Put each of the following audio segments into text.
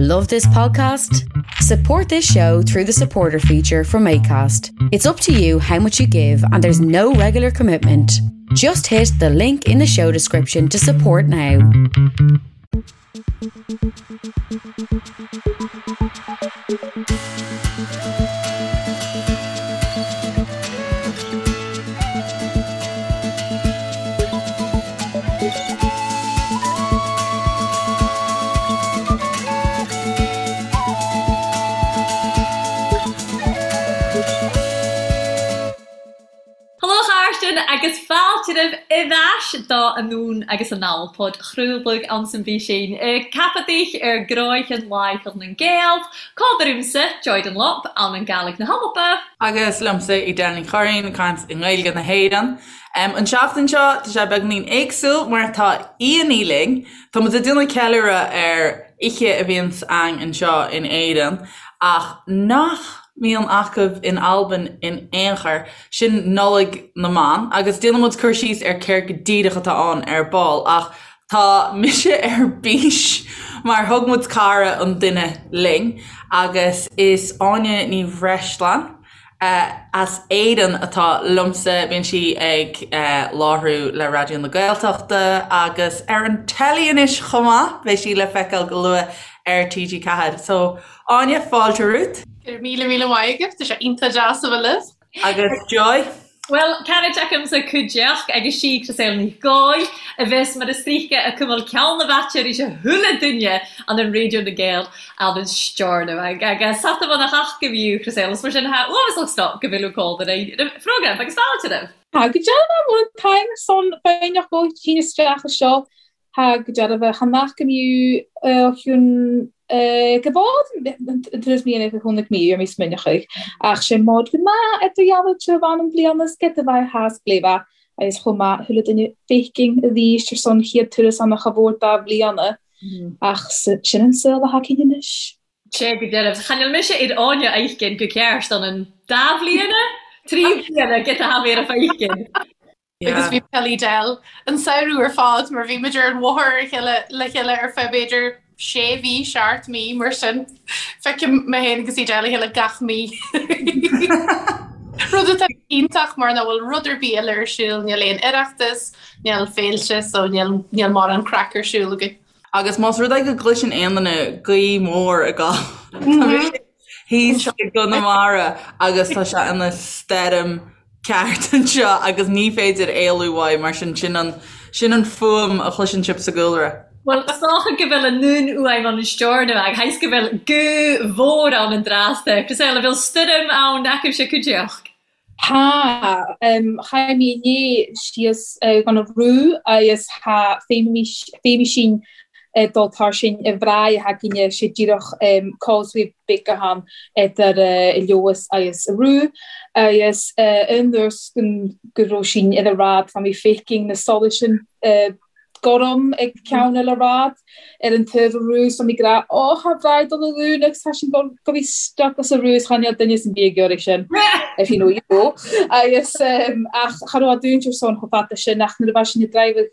Love this podcast? Support this show through the supporter feature from ACAST. It's up to you how much you give, and there's no regular commitment. Just hit the link in the show description to support now. Hello a chàirdean agus fàilte roimh a ais do Anonn agus Anall, pod-chraoladh anns an bh-sinn Ceapadh ar gcroidhean Làitheil nan Gàidheal, Còmhar iumsa, Joy Dunlop, ann an Gàidhlig na h-Alba. Agus liomsa Edel Ní Churraoin, ag caint i nGaeilge na hÉireann. An tseachtain seo, tá sé beagainín éagsúil mar tá aíonna linn. Tá muid ag déanamh ceiliúradh ar oíche a bhíonns againn anseo in Éirinn ach nach mbíonn acu in Albain in aon chor, sin Nollaig na mBan agus déanfaidh muid cur síos ar céard go díreach atá ann ar ball ach tá mise ar bís mar thug muid cara an duine linn agus is Áine Ní Bhreisleáin as Éirinn atá liomsa. Bíonn sí ag láithriú le Raidió na Gaeltachta agus ar an teilí anois chomh maith. Beidh sí le feiceáil go luath ar TG4. So, Áine, fáilte romhat. Go raibh míle míle maith agat. Tá sé iontach deas a bheith libh. Agus Joy? Bhuel, canad agamsa cuideachd agus sí Crisdeil Ní Ghoill, a bheas mar a stríoca a cuimil ceann na bhfaitear is a chuile duine an an Raidió na Gael ann an stiúrnadh agus sata bhun a theach go bhfiú Crisdeil is mar sin tha uathmhasach sto go bhfuil cód ar an phrógram agus fáilte roimh. Tá go dearfa bhfuil an t-am ar son foighneach go tinn isteach anseo Tá go dearfa chan nach go mbíodh chiún go bhfad an turas mí an chónaidh mí ar míos minice ach sé mod go maith ar do dhealbh te bhan an bhliain is get a bheith theas gléibhe agus chomh maith chuile duine féicinn a bhí ar son chéad turas an cha mhór dá bhliana ach sin an saol a thacaíonn anois. Sé go dearbh. Chan fheil mise ar Áine fheicinn go ceart an an dá bhliana? Trí bliana get a tha mé ar a feicinn. Agus bhí peil Edel an samhradh ar fad mar bhí muid ar an bhóthar ar chéile le chéile ar feadh b'fhéidir sé mhí, seacht mí mar sin. Feicim mé féin agus Edel a chéile gach mí. Rud atá iontach mar nach bhfuil rud ar bith eile ar siúl, níl aon oireachtas, níl féilte so níl níl mórán craic ar siúl againn. Agus más rud é go gcloiseann aon duine gaoth mhór ag gabháil, tá mise thíos i gConamara agus tá sé ina stoirm ceart anseo agus ní féidir éalú uaidh mar sin sin an sin an fuaim a chloiseann sibh sa gcúlra. Bhuel, is dócha go bhfuil an nún uaim ann an stiúrnadh ag thaghas go bhfuil gaoth mhór ann an dtráth Crisdeil, an bhfuil stoirm ann acaibhse cuideachd? Tá. Chaith mé inné síos gan a bhrú agus tá féimísín dul tar sin i bhfraigh a thagainn sé díreach causeway beag ann idir Leodhas agus Rú agus an uair go raibh sin ina rad tá mé feicing na solais sin gorm ag ceann eile rad ar an taobh a rú so mé ag rá ó tá bhraith dul a dhún agus tá sin go go bhí stuck as a rú is chan eil duine san bhí ag iarraidh sin if you know you know agus ach cha raibh a dúint ar son chomh fada sin ach nuair a bheith sin ag driving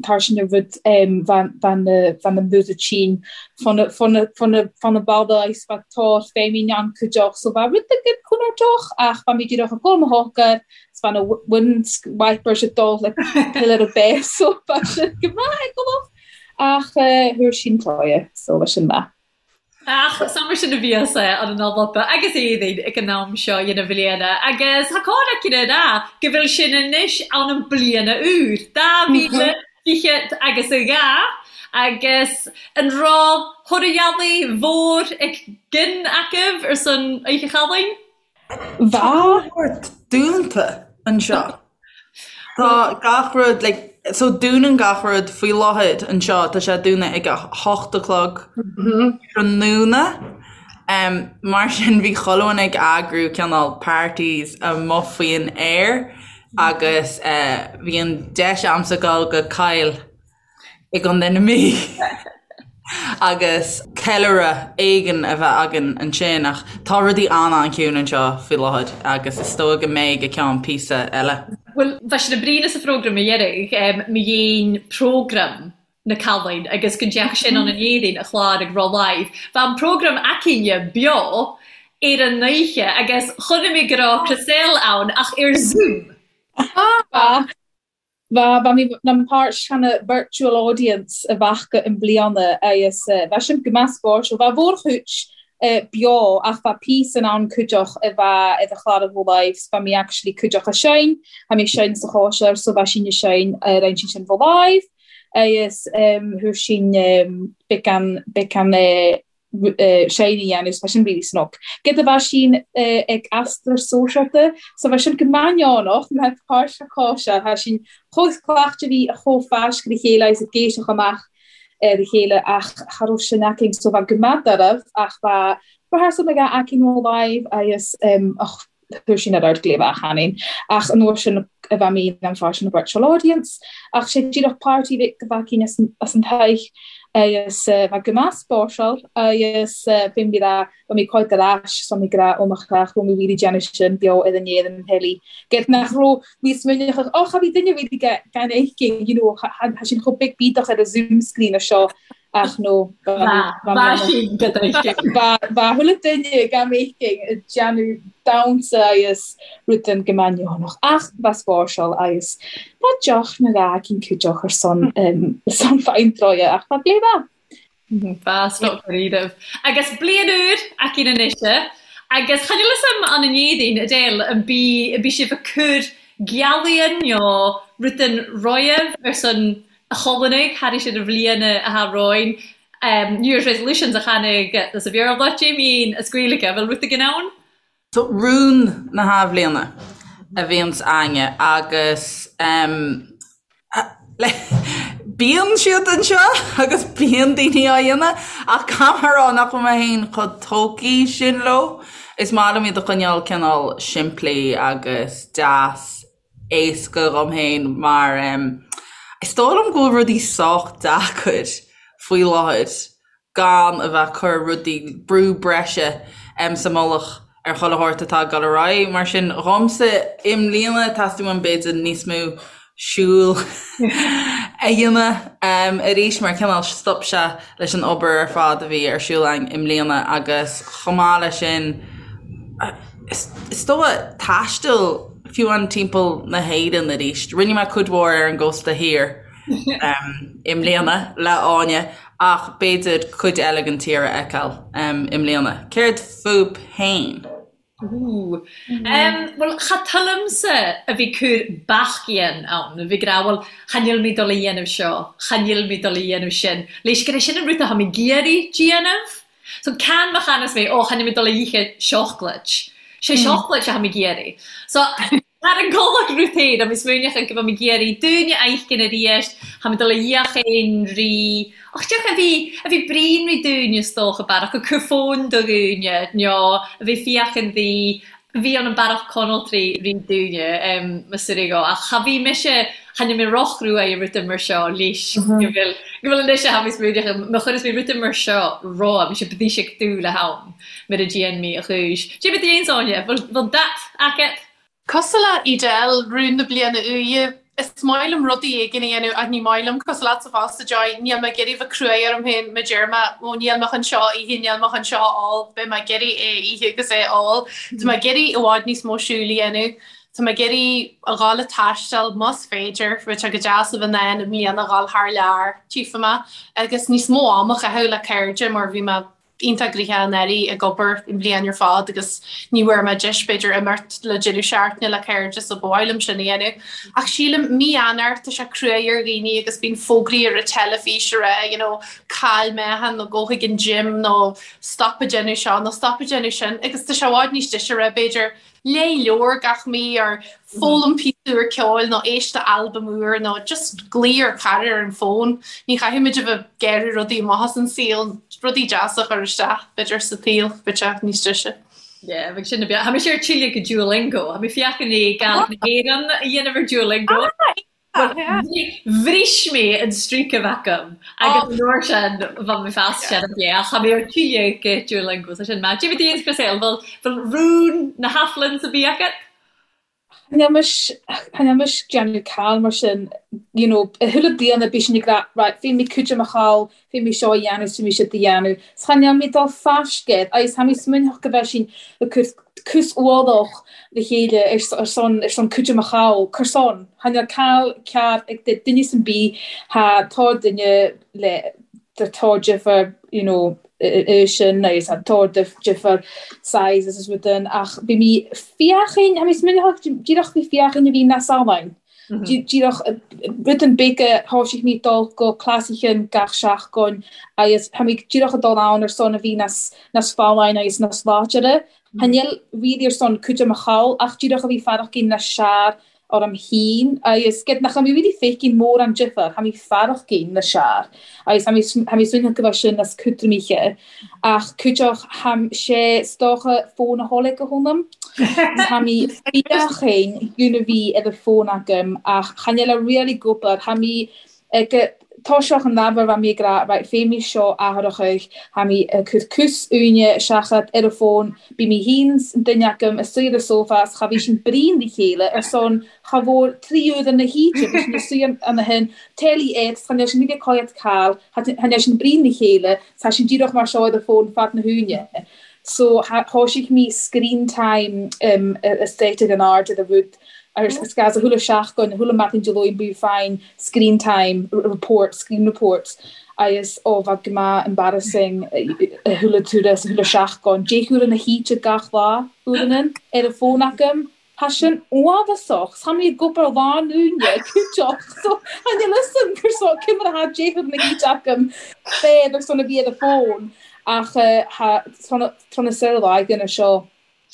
tar sin a rud bhean na músa tinn fan na balla is bheadh tá féimín an cuideach so bheadh rud éigin contúirteach ach bheadh mé díreach ag gabháil mo shocair is bheadh na wind wipers ag dul le pillar a bheith so bheadh sin go maith ag gabháil ach thuair sin cloie so bheadh sin maith. Ach sa mar sin a bhíos an an Alba agus Éirinn ag an am seo dhen bhliana agus tha còir aici a ràdh go bhfuil sinn anois ann an bliana úr, 2020 agus a dhà, agus an raibh thoradh mhór ag gin agaibh ar son Oidhche Chalainn? Tá rud dúnta anseo. Tá gach rud like so dúnann gach rud faoi láthair anseo tá sé dúnadh ag a hocht a chlog tráthnóna. Um, mar sin bhí chuile dhuine ag eagrú cineál parties amuigh faoin aer agus uh, bhí an deis a'msa dul go Kyle i gContae na Mí agus ceiliúradh éigin a bheith againn ansin ach tá rudaí an-an-chiúin anseo faoi láthair agus is dóigh go mbeidh go ceann píosa eile. Bhuel, bha sinn a' bruidhinn sa phrógram a dheireadh, mo dhein prógram na Cailín agus go ndeach sin ann an Éadaoin a chlár ag Raw Live. Bha an prógram againne beo ar an oíche agus chonaic mé go raibh Chriselle ann ach ar Zoom. Bha, bha, bha mi nam pàirt chan a virtual audience a bhfaca i mbliana agus bha sin gu math spòirseil. Bha mhòr-chuid beo ach bha píosan ann cuideach a bha i do chlàr a bho live so bha mi actually cuideach a seinn, tha mi ag seinn sa chòisir so bha sinn a seinn ar an sin bho live agus thuar sinn beagan beagan seinn a dhéanamh so bha sin really snug. Gyda bha sinn ag aistear sóisialta so bha sin go maith mar páirt sa chòisir tha sinn chomh cleachta bhí a chomh fáisc le chéile agus ag éisteach amach ar a chéile ach cha raibh sin againn so bha gu math dairbh ach bha rehearsal beag againn ó live agus ach chuir sin ar ard gléibh achan ach an uair sin a bha mi an pháirt an virtual audience ach sé díreach party bheith go bhfaicinn as an as an teach agus bha gu math spòirseil agus bhí mé rá bha mi cuid ar ais so mi ag rá ó mo chreach raibh mé really déanamh sin beo ar an aer an telly get nach raibh níos minic ach ó cha bhí duine really gan fheicinn you know tha sin chomh big bídeach ar a Zoom screen a seo ach nó Bha sin go Bha chuile duine gan fheicinn ag déanamh damhsa agus rud go maith ach bha spòirseil agus bha deoch na rá cinn cuideach ar son son fine ach bha gléibh Bha snug dáiríribh. Agus bliain úr againn anois agus chan eil fhios a'm ann an Éadaoin, Edel, an bi an bi sibh a' cur gealaighean nó rudan roimh ar son a' Cholannaigh thairis ar an bhliain a tha romhainn. New Year's Resolutions a chanadh sa Bhéarla, Jamie as Gaeilge, bhfuil rud éigin ann? So rún na hathbhliana a bhíonns a'inne agus bíonn siad anseo agus bíonn daoine á dhéanamh ach caithfidh mé a rá nach bhfuil mé féin chomh tógtha sin leo. Is maith liom iad a choinneáil cineál simplí agus deas éasca dhom féin mar is dóigh liom go bhfuil rudaí sách deacair faoi láthair gan a bheith ag cur rudaí, brú breise sa mullach ar chuile shórt atá ag dul ar aghaidh. Mar sin, dhomsa, i mbliana, teastaíonn uaim b'fhéidir níos mó siúil a dhéanamh arís mar cineál stop sé leis an obair ar fad a bhí ar siúl againn i mbliana agus chomh maith leis sin, is dóigh taisteal fiú amháin timpeall na hÉireann arís. Rinne mé cuid mhór ar an gcósta thiar i mbliana le Áine ach b'fhéidir cuid eile den tír a fheiceáil i mbliana. Céard fúibh féin? Ooh. Bhuel, cha toilmse a bhith cur bac-ghean ann, a bhith ag rá, bhuel, cha nil mi dol a dhéanamh seo, cha nil mi dol a dhéanamh sin. Leis gur é sin an rud a tha mi ag iarraidh déanamh. So can má chanas mé, ó, cha nil mi dol a ithe seacláid. Sé seacláid a tha mi ag iarraidh. So, Thar an gcomhlacht rud féin, agus smaoineach go bhfuil mé ag iarraidh dúine a fheiscint arís, tha mi dol a fhiachain ri, och diolch a bhí, a bhí bruíon ri dúinn is dócha, bearach ag cur fón do dhúine, nó a bhí fiachain di, bhí ann an bearach conaltraí ri dúine, mo suirigh ach cha bhí mise, cha nil mé rochruaidh i ruda mar seo leis, go bhfuil, go bhfuil anois a tha mi smaoineach, má chuireas mé ruda mar seo romham, mise bídís ag dúil le ham. Mar a dhéan mé a chúis. Cé bith aon Áine, bhfuil dat agat? Cosúil le Edel, rún na bliana úire, is maith liom rudaí éigin a dhéanamh ach ní maith liom, cosúil leatsa fosta Joy, níl mé ag iarraidh bheith cruaidh orm féin má deir mé ó níl mé chun seo a ithe, níl mé chun seo a ól, beidh mé ag iarraidh é a ithe agus é a ól. Tá mé ag iarraidh i bhfad níos mó siúil a dhéanamh, tá mé ag iarraidh a dhul ag taisteal más féidir, bheadh sé go deas a bheith in ann i mbliana a dhul thar lear, tchífidh mé, agus níos mó am a chaitheamh le cairde mar bhí mé iontach gnoitheach anuraidh ag obair an bhliain ar fad agus ní bhfuair mé deis b'fhéidir imeacht le deireadh seachtaine le cairde so ba mhaith liom sin a dhéanamh. Ach sílim mí Eanáir tá sé cruaidh ar dhaoine agus bíonn fógraí ar an teilifís a rá you know caill meáchan nó gabh chuig an gym nó stop ag déanamh seo nó stop ag déanamh sin agus tá sé i bhfad níos deise a rá b'fhéidir léigh leabhar gach mí or foghlaim píosa úr ceoil nó éist le albam úr nó just glaoigh ar chara ar an bhfón. Ní chaithfimid a bheith ag iarraidh rudaí amach as an saol, rudaí deasa a chur isteach, b'fhéidir, sa tsaol, bheadh sé níos deise. Yeah, bheadh sin a bheith. Tha mise ar tile go Duolingo. Tha mi fiachain le Gàidhlig na hÉireann a dhéanamh ar Duolingo. Bhris mé an streak a bheith agam agus an uair sin bha mi fas sin a bheith ach tha mi ar tile go Duolingo so sin maith. Cad é fá dtaobh díot Chriselle, bhfuil rún na hAthbhliana bith agat? Cha níl mise, cha níl mise ag déanamh call mar sin, you know, i chuile bliana bíonn sinn ag rá, right, féadfaidh mé cuid de mo chall, féadfaidh mé seo a dhéanamh, is féadfaidh mé siúd a dhéanamh. 'S cha níl mé ag dul fascéad, agus tá mé smaoineach go bheith sinn ag cur cús ualach le chéile ar son, ar son cuid de mo chall, cur son, cha níl call ceart ag duine san bith, tá tá duine le, tá difear, you know, sin agus tá difear sizes is rud in ach bhí mé féachaint, tá mé smaoineach díreach bhí féachaint a bhí na saláin. Díreach rud an big thoisigh mé dul go cleasaichin gach seachtain agus tá mé díreach ag dul ann ar son a bhí nas nas folláin agus nas láidire. Cha níl really ar son cuid de mo chall ach díreach a bhí fearach na sear orm féin agus gid nach mé really feicim mórán difear, tha mi farachgainn na sear agus tha mi tha mi suaimhneach go bheith sin as cútramaithe ach cúiteach tha sé 's dócha fón a tholg go hónam tha mi fiachainn gúna bhí ar a fón agam ach chan eil a really gobar tha mi ag toiseach an leabhar bha mi ag rá right fé mi seo athrachadh tha mi ag cur cús uaine seachad ar a fón bí mi fhéin 's an duine agam ag suí ar a sófá 's cha bhí sinn bríon le chéile ar son cha mhór 3 uair na hoíche bhí sinn ag suí ann a shin teilí air 's cha níl sinn ag coigead call cha níl sinn bríon le chéile 's tha sinn díreach mar seo ar a fón fad na huaine so thoisigh mi screen time a set ag an aird ar a rud Agus is gas a chuile seachtain, a chuile maidin Dé Luain bíodh fine screen time report, screen reports agus ó bheadh go maith embarrassing a chuile turas, a chuile seachtain, deich uair na hoíche gach lá, uaireanna, ar an bhfón agam. Tá sin uafásach, 's tha mi ag obair lá an Luaine, cúiteach, so tha níl fhios a'm gur so cé mar atá deich uair na hoíche agam féad ar son a bhí ar an bhfón ach tha tráth na saor láige na seo.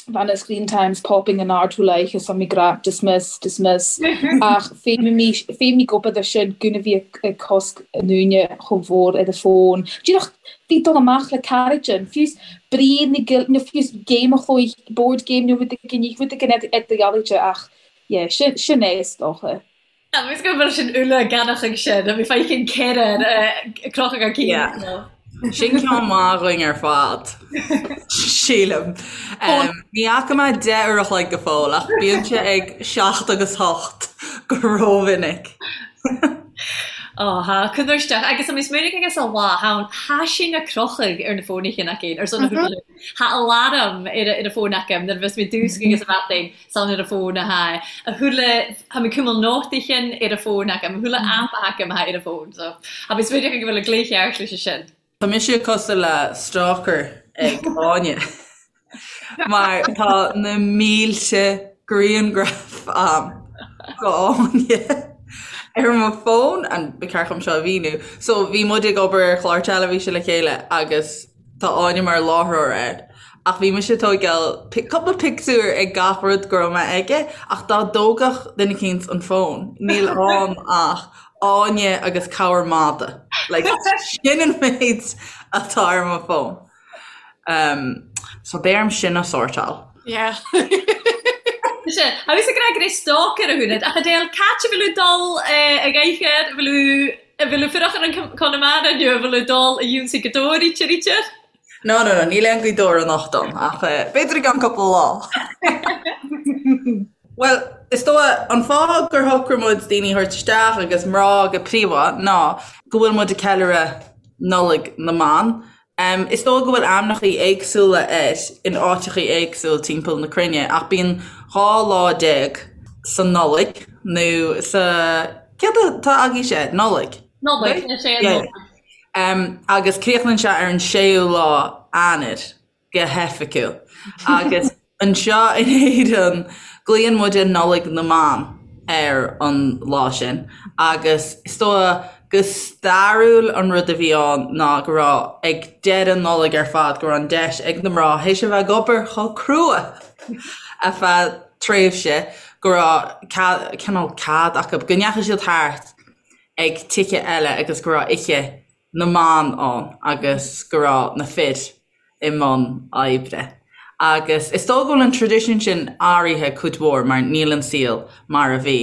Bha na screen times popping in ard thú like is mi gra dismiss, dismiss ach féadfaidh mé gobar de sin gúna bhí ag cosc an uaine chomh mhór ar a fón. Díreach bhí dul amach le caraidean, fiú brí na gil nó fiú game a chloí, board game nó rud éigin, rud éigin ar do dhealaíte ach yeah, sin sin é is dócha. Agus go bhfuil sin uile ganach ag sin, bhí feicim ceithre crochadh ar cinn. Sin ceann maith againn ar fad, sílim. Ní fhaca mé 10 uair a chloig go fóill ach bíonn sé ag 7 agus 8 go rómhinic. Ó thá, cur isteach. Agus tá mé smaoineamh agus a lá, thá thá sin a crochadh ar na fónaithe againn, ar son na húdair. Thá alarm ar a fón agam nuair a bheas mé dúsc agus a bheatainn. San ar a fón a tha a chuile tha mi cumail nótaichin ar a fón agam, a chuile aip a tha agam a tha ar a fón so tha mi smaoineach go bhfuil a glaoch ceart leis sin. Tá mise cosúil le stalker ag Áine mar tá na mílte grianghraf a'm go Áine ar mo fón and ba cheart dom seo a mhíniú. So bhí muid ag obair ar chlár teilifíse le chéile agus Tá Áine mar láithreoir air. Ach bhí mise ag tóigeáil cúpla pictiúr ag gach rud go raibh mé aige, ach dá dtógfadh duine eicínt an fón, níl ann ach Áine agus corr mada. Like, sin an méid atá ar mo fón. Um, so beidh orm sin a sórtáil. Yeah. Sea, agus ag rá go raibh stalker a húnad, ach Adele, c'áit a bhfuil tú dul eh, ag oíche, bhfuil tú An bhfuil tú fuireach ar an Conamara nó an bhfuil tú dul a dh'ionnsaigh Gaoth Dobhair ríte ríte? No, no, no, níl aon Ghaoth Dobhair anocht ann, ach b'fhéidir i gceann cúpla lá. Bhuel, is dóigh, an fáth gur shocraigh muid daoine a thabhairt isteach agus mná go príomha ná go bhfuil muid ag ceiliúradh Nollaig na mBan Is dóigh go bhfuil ainmneachaí éagsúla air in áiteachaí éagsúil timpeall na cruinne, ach bíonn 12 lá sa Nollaig, nó sa, céard atá agaibhse? Nollaig? Nollaig, is é an Nollaig. Agus críochnaíonn sé ar an séú lá Eanáir go hoifigiúil. Agus Anseo in Éirinn, glaonn muide Nollaig na mBan ar an lá sin agus is dóigh go stairiúil an rud a bhí ann ná go raibh ag deireadh Nollag ar fad go raibh an deis ag na mná théis a bheith ag obair chomh crua ar feadh tréimhse go raibh cineál cead acu go ndeachaigh siad thart ag tithe eile agus go raibh oíche na mban ann agus go raibh na fir i mbun oibre. Agus is dóigh go bhfuil an traidisiún sin athraithe cuid mhór mar níl an saol mar a bhí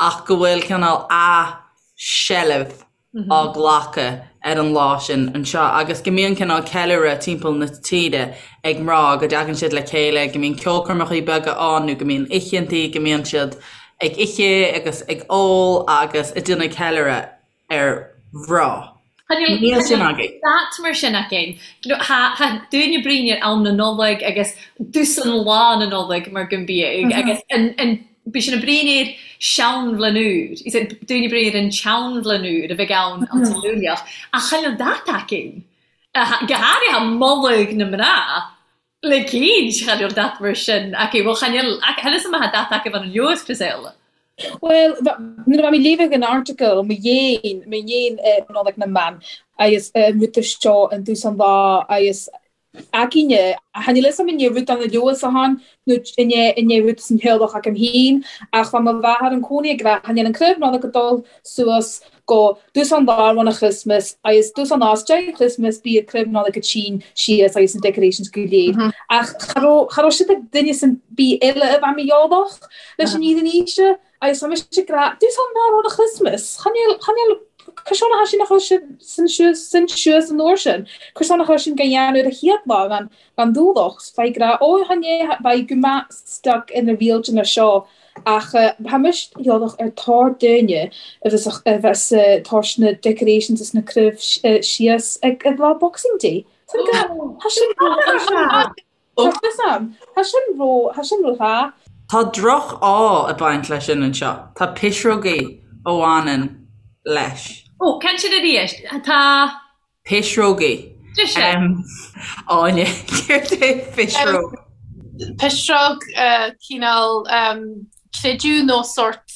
ach go bhfuil cineál athsheilbh. á glacadh ar an lá sin anseo agus go mbíonn cineál ceiliúradh timpeall na tíre ag mná, go dtagann siad le chéile, go mbíonn ceolchoirmeacha beaga ann nó go mbíonn oícheantaí, go mbíonn siad ag ithe agus ag ól agus ag déanamh ceiliúradh ar mhná. Níl sin againn. Dat mar sin againn. Tha daoine a' bruidhinn air am na Nollag agus dtusan Lá na Nollag mar gun bíodh agus an Bidh sinn a' bruidhinn air seanbhlain úr, is ea, daoine a' bruidhinn air an tseanbhlain úr a bheidh ann an tSaoileach, ach chan eil dat againn, go háirithe moladh na mná, le cinnt, chan eil dat mar sin againn, bhuel, chan eil, chan fhios a'm má tha dat agaibh ann an leabhar, Griselda. Bhuel, nuair a bha mi léamhadh an article, mo dhéin, mo dhéin Nollaig na mBan, agus an rud seo an dtús an lá, agus againne. Chan eil a fhios a'm an e rud ann a leabhas a nó an e an e rud san theaghlach agam féin ach bha mo mháthair an cónaí ag rá chan eil an craobh Nollag ag dul suas go dtús an lá roimh an Christmas agus dtús an lá is deireadh Christmas bíodh craobh Nollag ag tinn síos agus na decorations go léir. Ach cha raibh cha raibh siad ag duine san bith eile a bha mo theaghlach leis an iad an aoise. Agus tá mise ag rá, dtús an lá roimh an Christmas, chan eil, chan eil, cur a sin a chur sin suas, sin suas an uair sin, cur a chur sin go dhéanamh ar a chéad lá gan, gan dúlach, bheidh ag rá, ó chan é, beidh go maith stuck ina rialtanas seo, ach tá mise eolach ar tor duine a bheas, a bheas tabhairt na decorations is na craobh síos ag lá Boxing Day. Tá sin, tá sin, Tá fhios a'm. Tá sin ró, tá sin ró-thá. Tá droch-ádh ag baint leis sin anseo. Tá pisreogaí a bhaineann leis. Ó, cén sin arís? Tá. Pisreogaí. Deis. Áine, céard é pisreog? Pisreog, cineál creideamh nó sórt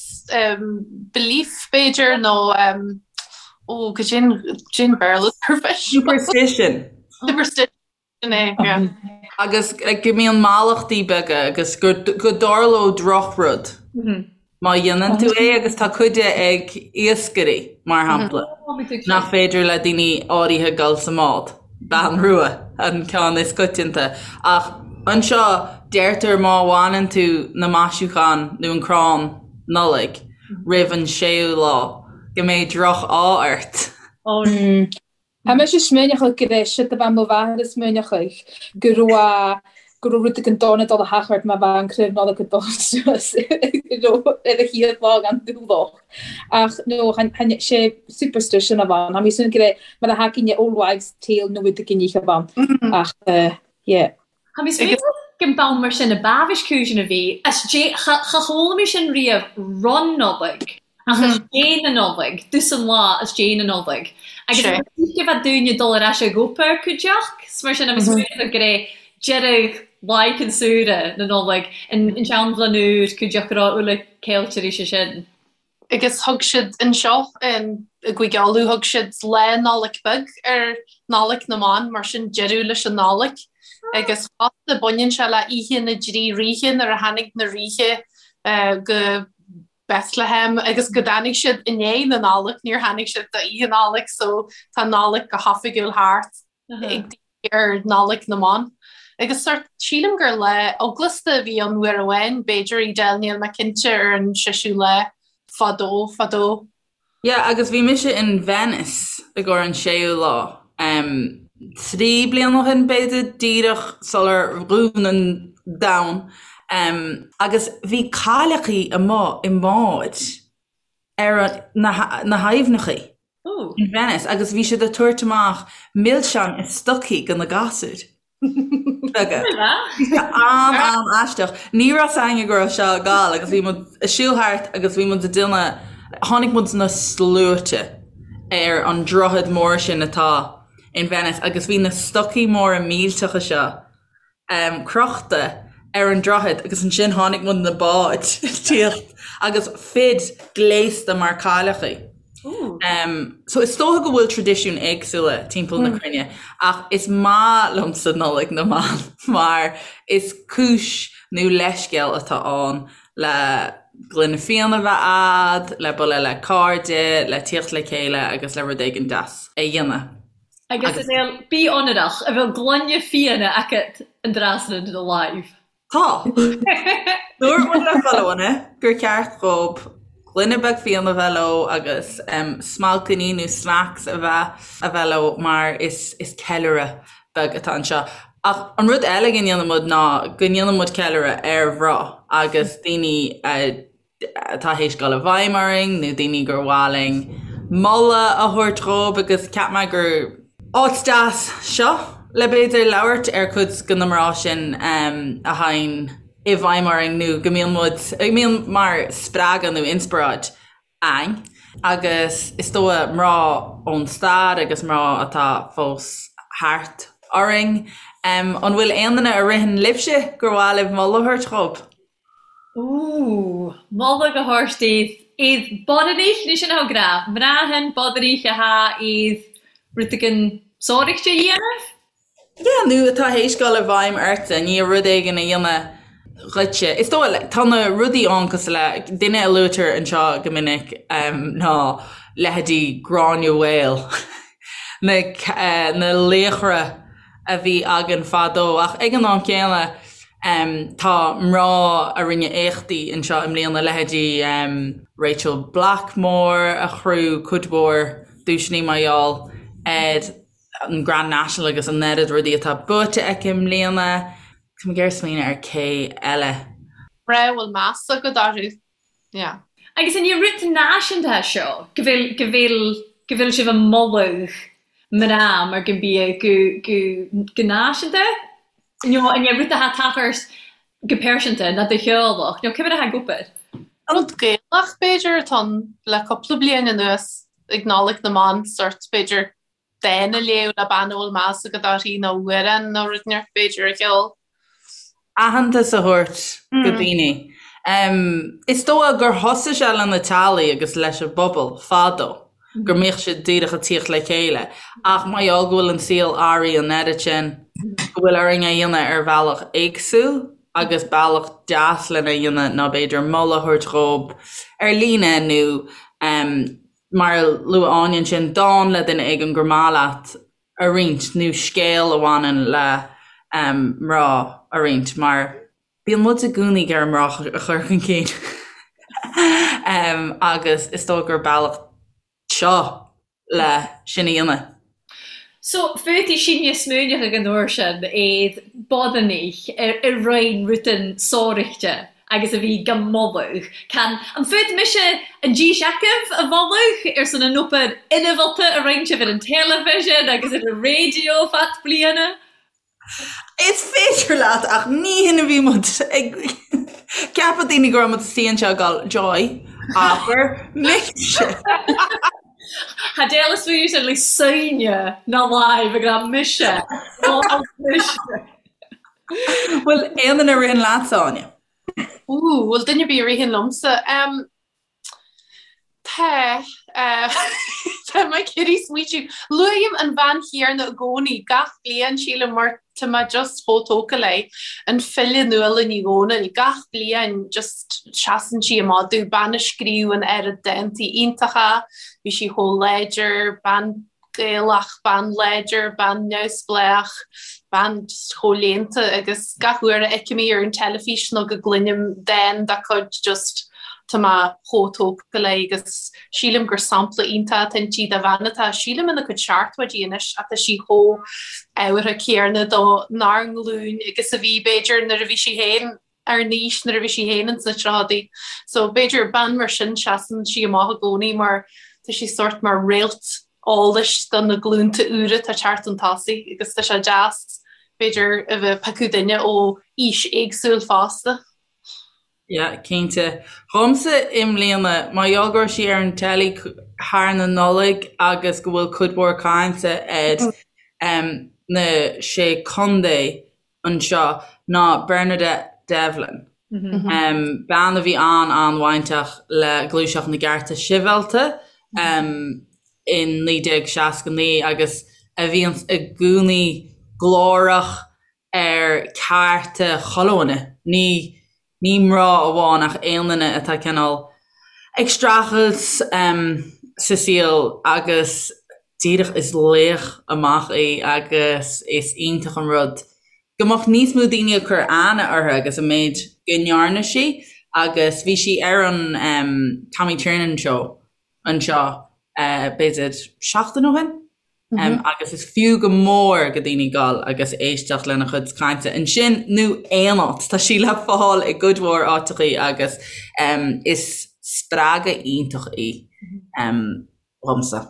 belief, b'fhéidir, nó ó, goidé an Béarla ar pisreog. Superstition. Superstition. Sin é, yeah. Agus go mbíonn mallachtaí beaga agus go dtarlódh drochrud má dhéanann tú é agus tá cuid de ag iascairí, mar shampla, nach féidir le daoine áirithe dul sa mbád. Bean rua an ceann is coitianta. Ach anseo deirtear má bhaineann tú na maisiúcháin nó an crann Nollag roimh an séú lá go mbeidh droch-ádh ort. Tá mise smaoineachadh go raibh siad a bheith mo mháthair ag smaoineachadh go raibh go raibh rud éigin dona ag dul a theacht ort má bha an craobh Nollag ag dul suas ar a chéad lá gan dúlach. Ach no, chan sé superstition a bhain. Tá mé ag súil go raibh mar a thacaíonn le Old Wives Tale nó rud éigin a bhain. Ach yeah. Tha mi smaoineachadh gun b'ann mar sin a b'amhais cùisean a bhì as dè cha cha chuala mi sin riamh ron Nollaig ach as dè na Nollag, dtusan lá as dè na Nollag. Agus Sé. go bheadh daoine dul ar ais ag obair cuideachd, 's mar sin tha mi smaoineachadh gur é deireadh laighean saoire na Nollag an an tseanbhliain úr cuideachd go raibh uile ceiltear sé sin. Agus thug siad anseo i gCúige Uladh, thug siad Lá Nollag Beag ar Nollaig na mBan, mar sin deireadh leis an Nollaig. Agus fosta baineann sé le Oíche na dTrí Ríthe nuair a tháinig na ríthe go Bethlehem agus go dtáinig siad i ndiaidh na Nollag, níor tháinig siad d'Oíche Nollag so tá Nollaig go hoifigiúil thart. ag daoine ar Nollaig na mBan. Agus sórt, sílim gur lá eaglasta a bhí ann uair amháin, b'fhéidir, Edel, níl mé cinnte ar an seisiú lá fadó, fadó. Yeah, agus bhí mise in Venice i gcomhair an séú lá, em, 3 bliana ó shin b'fhéidir, díreach sular dhún an domhan, em, agus bhí cailleachaí amuigh i mbáid ar na, na haibhneachaí. In Venice agus bhí siad ag tabhairt amach milseáin i stocaí go na gasúir beaga. Bhí sé an-an-aisteach. Ní raibh 's againne go raibh seo ag gabháil agus bhí muid ag siúl thart agus bhí muid ag déanamh, tháinig muid na sluaite ar an droichead mór sin atá in Venice agus bhí na stocaí móra millteacha seo crochta ar an droichead agus ansin tháinig muid na báid ag tíocht agus fir gléasta mar cailleachaí. So is dócha go bhfuil traidisiúin éagsúla timpeall na cruinne ach is maith liomsa Nollaig na mBan mar is cúis nó leithscéal atá ann le gloine fíona a bheith a'd, le bualadh le cairde, le tíocht le chéile agus le rud éigin deas a dhéanamh. Agus Edel, bí ionrach, a bheil gloine fíona agat an dtráth san do láimh. Tá. Dúirt muid le chuile dhuine gur cheart dhób. Gloine beag fíona a bheith leo agus smailcíní nó snacks a bheith a bheith leo mar is is ceiliúradh beag atá anseo. Ach an rud eile go ndéanann muid ná go ndéanann muid ceiliúradh ar mhná agus daoine atá théis dul i bhfeidhm orainn nó daoine gur mhaith linn moladh a thabhairt dhóibh agus cheap mé gur áit deas seo le b'fhéidir labhairt ar cuid de na mná sin a théann i bhfeidhm orainn nó go mbíonn muid, go mbíonn mar spreagadh nó inspioráid a'ainn agus is dóigh mná ón stair agus mná atá fós thart orainn. An bhfuil aon duine a ritheann libhse gur mhaith libh moladh a thabhairt dhóibh? Ooh, moladh a thabhairt daoibh iad bodhrainich, ní sin atá grá, mná shin bodhrainich atá iad rud éigin sóireachta a dhéanamh. Yeah, nó atá théis dul i bhfeidhm ortsa, ní rud éigin a dhéanamh dhuitse. Is dóigh, like, tá na rudaí ann cosúil le, duine a luaitear anseo go minic ná leithéidí Gráinne Mhaol, na, na laochra a bhí againn fadó ach ag an am céanna tá mná a rinne éachtaí anseo i mbliana, leithéidí Rachael Blackmore a ghnóthaigh cuid mhór duaiseanna mar gheall ar an Grand National agus an oiread rudaí atá buaite aici i mbliana. Tá mé ag iarraidh smaoineamh ar cé eile. Mná a bhfuil meas agat orthu. Yeah. Agus an é rud náisiúnta seo go bhfuil, go bhfuil, go bhfuil sibh ag moladh mná mar go mbíodh go, go, go náisiúnta? Nó an é rud atá tachairt go pearsanta ná do theaghlach nó cé mar atá ag obair? Rud Gaelach b'fhéidir atá ann le cúpla bliain anuas ag Nollaig na mBan, sort b'fhéidir dán a léamh le bean a bhfuil meas agat uirthi nó amhrán nó rud inteacht b'fhéidir a cheol. Aitheantas a thabhairt do daoine. Is dóigh gur thosaigh sé le na teaghlaigh agus leis an bpobal fadó, go mbíodh siad díreach ag tíocht le chéile. Ach mar gheall go bhfuil an saol athraithe an oiread sin, go bhfuil orainn é a dhéanamh ar bhealach éagsúil agus bealach deas lena dhéanamh ná b'fhéidir moladh a thabhairt dhóibh ar líne nó mar a luaigh Áine ansin, dán le duine éigin gur maith leat a roinnt nó scéal a bhaineann le mná a roinnt mar bíonn muid i gcónaí ag iarraidh mná a chur chun cinn agus is dóigh gur bealach seo le sin a dhéanamh. So, féadfaidh sinne smaoineamh ag an uair sin iad bodhrainich i roinn rutan sóireachta agus a bhí go moladh. Can, an fút mise an dís agaibh a mholadh ar son an obair inmholta a roinn sibh ar an teilifísean agus ar an raidió fad bliana? Is féidir leat ach ní hin a bhí muid ag ceapadh daoine go raibh muid istigh anseo ag gabháil Joy, abair mise. Tha Dale a' smaoineamh sin le soine ná láimh ag rá mise, mhol mise. Bhfuil aon duine a ritheann leatsa, Áine? Ooh, bhfuil duine ar bith a ritheann liomsa? Tá. Tá mé ag iarraidh smaoitiú. Luaim an bhean chéanna i gcónaí, gach bliain, sílim, mar tá mé just chomh tógtha léi. An file Nuala Ní Dhomhnaill. Gach bliain just seasann sí amach domh. Bean a scríobh an oiread dántaí iontacha, bhí sí chomh láidir, bean Gaelach, bean láidir, bean neamhspleách, bean just chomh léannta agus gach uair a fheicim í ar an teilifís nó go gcluinim dán dá cuid just tá mé chomh tógtha léi agus sílim gur sampla iontach atá inti de bhean atá, sílim ina cuid seachtóidí anois ach tá sí chomh ábhartha céanna do nár nglúin agus a bhí b'fhéidir nuair a bhí sí féin ár n-aois nuair a bhí sí féin ins na tríochaidí. So b'fhéidir bean mar sin seasann sí amach i gcónaí mar tá sí sórt mar réalt eolais do na glúnta úra atá ag teacht chun tosaigh agus tá sé deas b'fhéidir a bheith ag piocadh duine ó aois éagsúil fosta. Yeah, cinnte. Dhomsa i mbliana, mar gheall go raibh sí ar an teilí thar na Nollaig agus go bhfuil cuid mhór cainte ar na sé contae anseo ná Bernadette Devlin, bean a bhí an-an-bhainteach le Gluaiseacht na gCearta Sibhialta in 1969 agus a bhíonns i gcónaí glórach ar cearta chuile dhuine, ní ní mná amháin ach aon duine atá cineál ag streachailt sa saol agus díreach is laoch amach í agus is iontach an rud go mbeadh níos mó daoine ag cur aithne uirthi agus an méid go ndearna sí. Agus bhí sí ar an Tommy Tiernan Show anseo b'fhéidir seachtain ó shin agus is fiú go mór go daoine dul agus éisteacht lena chuid cainte ansin nó aon áit. Tá sí le fáil i gcuid mhór áiteachaí agus is spreagadh iontach í dhomsa.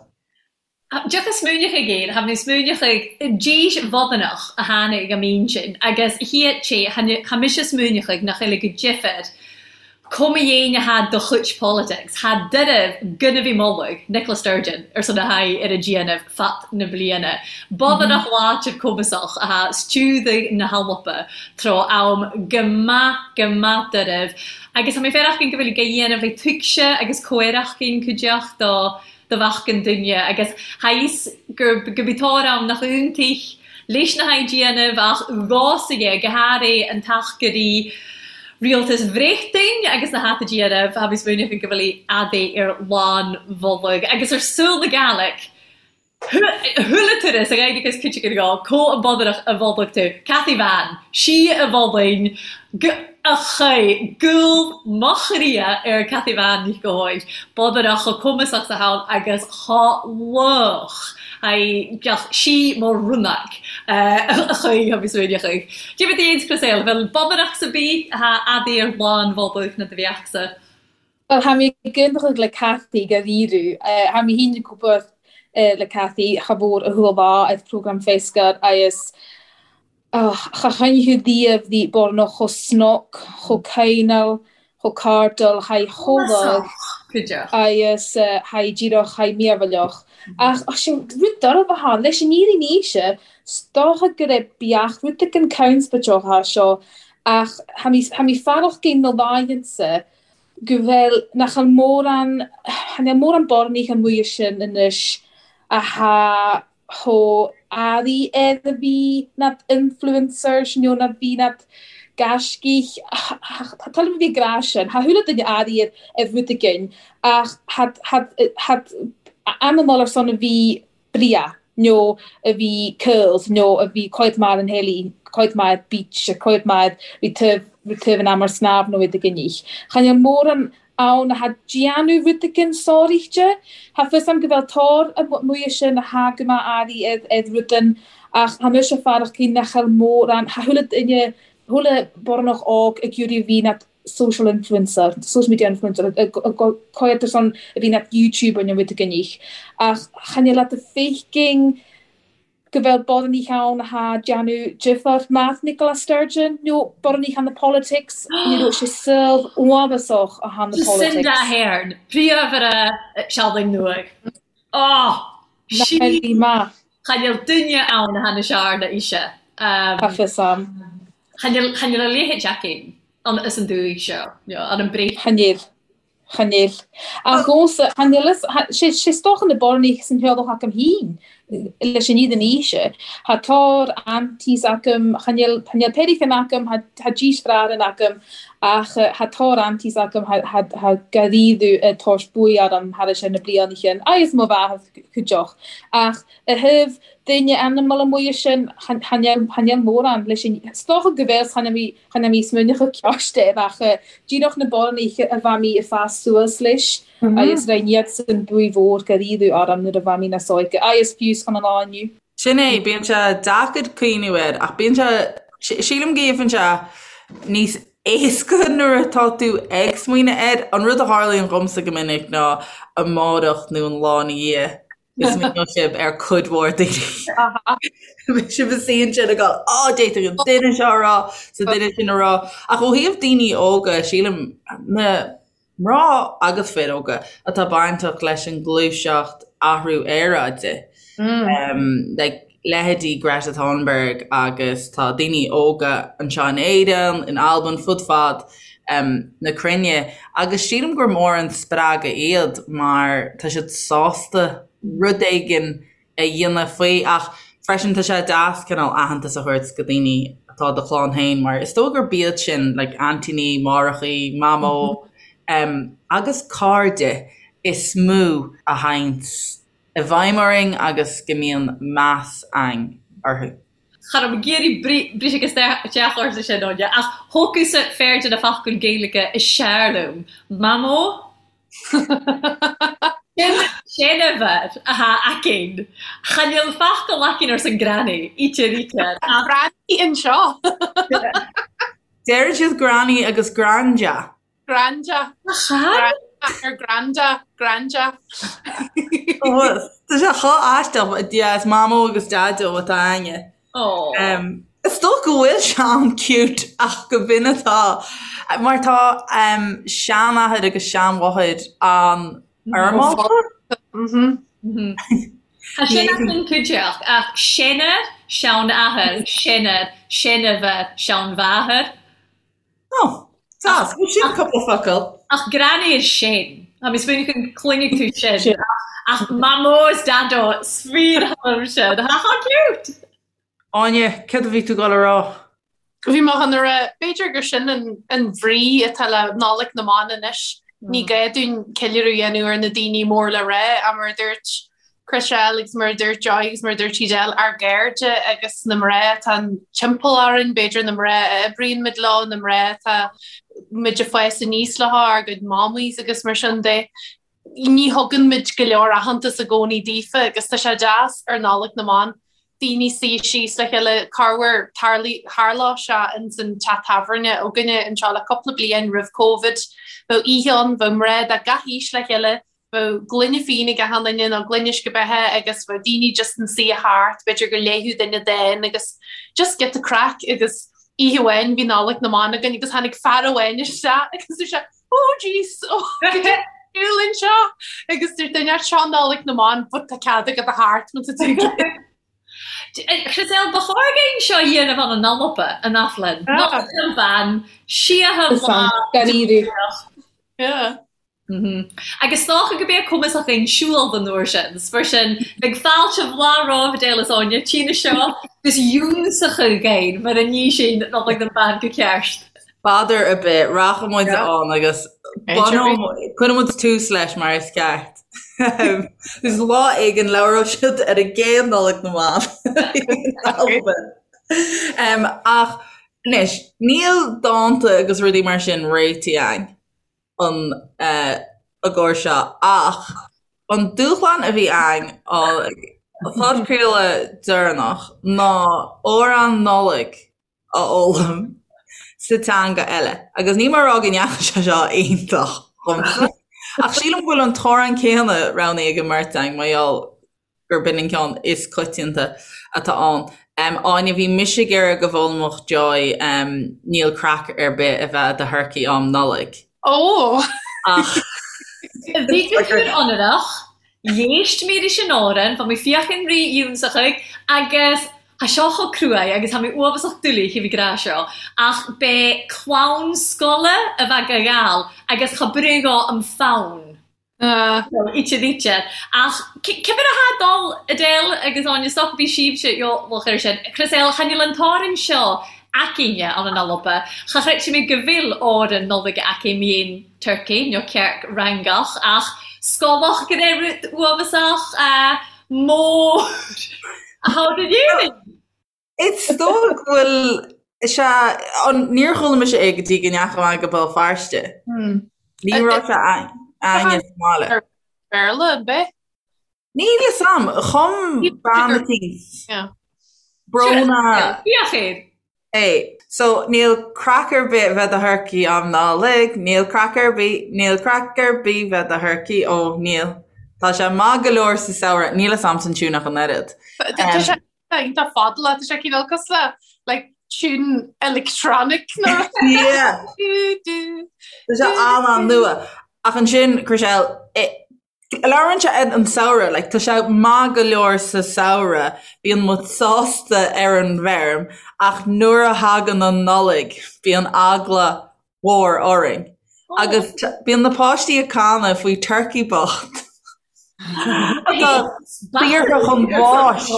Deoch a smaoineochaidh air, tha mi smaoineochaidh dís bhodanach a tháinig i m'intinn agus shíot sé, tha mise smaoineochaidh nach eile go difir cuma dhéin atha do chuid politics, tha doirbh gunna bhí moladh Nicola Sturgeon ar son a haghaidh ar a déanamh fad na bliana. Bodanach láidir cumasach atha stiúdaigh na hAlba tráth am go maith go maith doirbh agus tha mi fearachgain go bhfuil go dhéanamh ag tuigse agus comhaireachgain cuideachta do do mheascán duine agus tha fhios gur go bith tóir ann nach iontaich leis na h-déanamh ach gásaighe, go háirithe an tacairí rialtas Bhréachtain agus na hata déanamh, tha mi smaoineachadh go bhfuil adaí ar lán bholg agus ar súil na Gàidhlig. Chuala turas a ghairgeas cuid acu go có an bodaireach a bholg tú, Cathy Bhan, sí a bholainn go a chaith gúl mo chroidhe ar Cathy Bhan Ní Chomhaill, bodaireach chomh cumasach 's a thann agus chomh lách aghaidh sí mo rúnach a chaoi agus rinne chaoi. Dé bit dhéans Chris bhfuil bodaireach sa bith atá adaí ar lán bholg na do bheachsa. Bhuel, tha mi ag aontachadh le Cathy gur iarradh. Tha mi fhìn ag obair le Cathy cha mhór a chuala lá air programme Feiscar agus cha choinnfeadh riamh bhí Bornach chomh snoc, chomh cineál, chomh cairdiúil, tha í chomh lách agus tha í díreach, tha í mearbhallach. Ach sin rud dearfa atá ann. Leis an fhírinne ise, 's dócha go raibh beach rud éigin conspóideach seo ach tha mi, tha mi faireachginn na laethanta go bhfuil, nach bhfuil mórán, chan eil mórán Bornaich amuigh ansin anois athá chomh airí air a bhí nad influencers nó nad bhí nad gaiscígh, tá toil a bhí ag rá sin, tha chuile duine airí ar ar rud éigin ach thad, thad, thad anamál ar son a bhí breá nó a bhí curls nó a bhí cuid maith ar an heilí, cuid maith ar beach, cuid maith ar taobh taobh an am ar snámh nó iad ag inní. Chan eil mórán ann athá déanamh rud éigin sároíchte. Tha fios a'm go bhfuil tor amuigh ansin athá go maith airí ar ar rudain ach tha mise faireachginn nach eil mórán, tha chuile duine, chuile Bornach óg ag iarraidh a bhí nad social influencer, social media influencer, ag cuid ar son a bhí nad YouTuber nó rud éigin ach chan eil leat a feicinn go bhfuil Bornaich ann athá déanamh difear math Nicola Sturgeon nó Bornaich on the politics, you know, sé saol uafásach athá na politics. Jacinda Ardern, príomhaire Sealainn Nua. Oh! Sí! Maith. Chan eil duine ann athá na searna ise. Tá fios a'm. Chan eil a leithéid againn ann is an dúigh seo, an an bréith. Chan eil. Chan eil. Ach dhomsa, chan eil fhios, sé is dócha na Bornaich san theaghlach agam féin leis an iad an aoise. Tha tor aunties agam, chan eil, chan eil peirichin agam, tha deartháirean agam, ach tha tor aunties agam, tha, tha gairíodh ag tabhairt buaidh orm thar na blianacha, agus mo mháthair cuideach. Ach i thaobh duine animal amuigh ansin, chan eil mórán leis an, is dócha go bhfuil, chan eil mé smaoineachadh ceist air ach díreach na Bornaich a bheidh mé ag fás suas leis agus rinn iadsan buaidh mhór gairíodh orm nuair a bheidh mé níos óige agus fiú chun an lá inniu. Sin é, bíonn sé deacair cuimhniú air ach bíonn sé, sílim go gheibheann sé níos éasca nuair atá tú ag smaoineamh air. An rud a tharlaíonn dhomsa go minic ná amárach nó an lá ina dhiaidh go smaoineoidh sibh ar cuid mhór daoine. Beidh sibh ina suí ansin ag dul, á, d'fhéadfadh an duine seo a rá, 's an duine sin a rá. Ach ó thaobh daoine óga, sílim, na mná agus fir óga atá bainteach leis an ngluaiseacht athrú aeráide, like leithéidí Greta Thunberg agus tá daoine óga anseo in Éirinn, in Albain, fud fad na cruinne agus sílim gur mór an spreagadh iad mar tá siad sásta rud éigin a dhéanamh faoi ach freisin tá sé deas cineál aitheantas a thabhairt go daoine atá i do chlann féin mar is dóigh gurb iad sin like aintíní, máithreachaí, mamó agus cairde is mó a théanns i bhfeidhm orainn agus go mbíonn meas againn orthu. Cha raibh mé ag iarraidh briseadh isteach ortsa sin, Áine, ach thóg thusa fear de na focail Gaeilge is sear liom, Mamó. Sin seanfhear atá againn. Chan eil focal againn arsan granny, íte ríte. Ach granny anseo. Deireann siad granny agus granda. Granda. Chan? Ar granda, granda. Tá sé chomh aisteach, yeah, is mamó agus daideo atá againne. Oh. Is dócha go bhfuil sé an-cute ach go b'in atá. Mar tá seanathair agus seanmháthair an-fhoirmeálta. Tá sin as an cuideachta ach seanathair, seanathair, seanathair, seanmháthair, seanmháthair. Oh, deas. Bhuel, sin cúpla focal. Ach granny is sin. Tá mé smaoineamh go gcluinfidh tú sin. Ach mamó is daideo, 's fíor sin. Ha how cute! Áine, céard a bhí tú ag dul a rá? Bhí mé chun a rá, b'fhéidir gur sin an bhrí atá le Nollaig na mBan anois. Ní gá dúinn ceiliúradh a dhéanamh ar na daoine mór le rá, ach mar a dúirt Chriselle agus mar a dúirt Joy agus mar a dúirt Edel, ár gcairde agus na mná atá timpeall orainn, b'fhéidir na mná a oibríonn muid leo, na mná atá muid ag fás aníos leo, ár gcuid mamays agus mar sin de. Ní thugann muid go leor aitheantas i gcónaí daofa agus tá sé deas ar Nollaig na mBan daoine suí síos le chéile, corruair tharlódh sé ins an teach tábhairne againne anseo le cúpla bliain roimh Covid, bheadh oíche ann, bheadh mná de gach aois le chéile, Bheadh gloine fíon ag achan duine nó gloine uisce beatha agus bheadh daoine just ina suí thart, b'fhéidir go léifeadh duine dán agus just giota craic agus oíche amháin bhí Nollaig na mBan againn agus tháinig fear amháin isteach agus dúirt sé oh jeez, oh cad é siúl anseo agus dúirt duine seo Nollaig na mBan but tá cead agat a theacht má tá tú ag iarraidh. Chriselle, ba chóir againn seo a dhéanamh ann an Alba, an Aflainn. Nollaig na mBan, síotha mhaith. Yeah. Agus 's dócha go b'é cumas againn siúl don uair sin. 's mar sin, bheadh fáilte mhaith romhaibh Edel is Áine, trína seo, 'gus iúnsachadh againn mar a ní sin Nollaig na mBan go ceart. B'fhéidir ar bith, rachaidh muid ann agus cuirfidh muid tús leis mar is ceart. Is lá éigin labhróidh siad ar an gcéad Nollaig na mBan. Ach anois, níl dánta agus rudaí mar sin réitithe againn. an i gcomhair seo ach an dúshlán a bhí againn an podchraoladh deireanach ná amhrán Nollag a fhoghlaim sa teanga eile agus níl mé ag rá go ndeachaigh sé seo iontach dhomsa ach sílim go bhfuil an t-amhrán céanna roghnaithe ag an mbeirt againn mar gheall gurb in an ceann is coitianta atá ann. Áine, bhí mise ag iarraidh go bhfoghlaimeodh Joy Níl craic ar bith a bheith i do thurcaí um Nollaig. Ó! Ach. Bhí go cúr ionrach, l'éist mé leis an amhrán, bha mi feuchainn ri ionnsachaidh agus tha seo cho cruaidh agus tha mi uabhasach doiligh thaobh ag ràdh seo, ach b'é clann sgola a bheadh a ghabhail agus cha bruidhinn dhò am fonn. Íte díte. Ach cibé atá ag dul, Edel agus Áine, is dócha bhí sibhse eolach air sin. Chriselle, chan eil an t-òran seo againne ann an Alba. Cha chreidfidh mé go bhfuil òran Nollag againn mian turcaí nó cearc fhreangach ach scolach go raibh rud uabhasach mór a thabhairt in Éirinn. Is dócha go bhfuil sé an níor chuala mise é go dtí go ndeachaigh mé go Béal Feirste. Ní raibh sé againne sa mbaile. Béarla an bith? Níl fhios a'm, chum bean eicínt. Bróna. Bíodh air. É. So, níl craic ar bith bheith do thurcaí am Nollaig, níl craic ar bith, níl craic ar bith bheith do thurcaí, ó, níl. Tá sé maith go leor sa samhradh, níl fhios a'msa an tiún ach an oiread. Tá sé iontach fadalach, tá sé cineál cosúil le like tune electronic nó Yeah. Tá sé an-an-nua. Ach ansin, Chriselle, labhrann sé an samhradh, like, tá sé maith go leor sa samhradh, bíonn muid sásta ar an bhfeirm, ach nuair a thagann an Nollaig, bíonn eagla mhór orainn. Agus bíonn na páistí ag canadh faoi turcaí bocht atá daortha chun báis.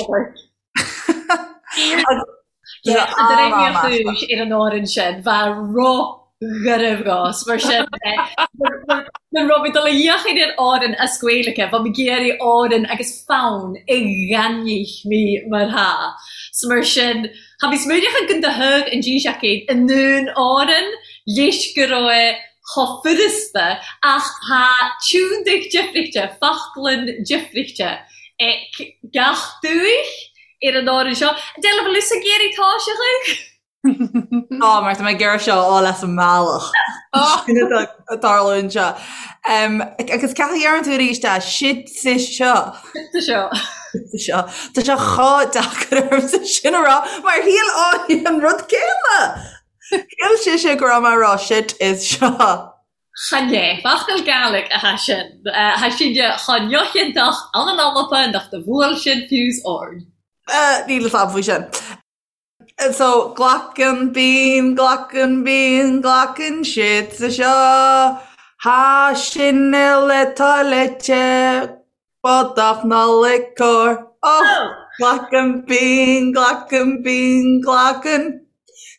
Ar an òran sin, bha ro. Garbh ghas, mar sin nuair raibh mé dul a fhéachaint ar Árainn as Gaeilge, bheadh mé ag iarraidh Árainn agus fonn i gcainníocht mé mar tha. So mar sin, tha mé smaoineachadh gun do thug an dís acu i nDún Árainn leis go raibh chomh furasta ach tha tiúndaigh difrichte, foclainn difrichte ag gach dúich ar an Árainn seo. Deilbh bhfuil fhios ag iarraidh toiseachadh? Tá, mar tá mé ag iarraidh seo a fháil as an mbealach. Sin atá ag tarlú anseo. Agus cad a dheireann tú arís é? Sid sa seo. Sid sa seo. Sid sa seo. Tá sé chomh deacair ormsa sin a rá mar shíl Áine an rud céanna! Shíl sise go raibh mé ag rá shit is seo. Chan é. Focal Gàidhlig athá sin. Tha sinne cho neochiontach ann an Alba nach do bhuail sin fiú's ord. Níl fhios a'm faoi sin. So, glacann, bíonn, glacann, bíonn, glacann siad sa seo. Thá sin uile toilite, bodach Nollaig cóir. Oh! Glacann, bíonn, glacann, bíonn, glacann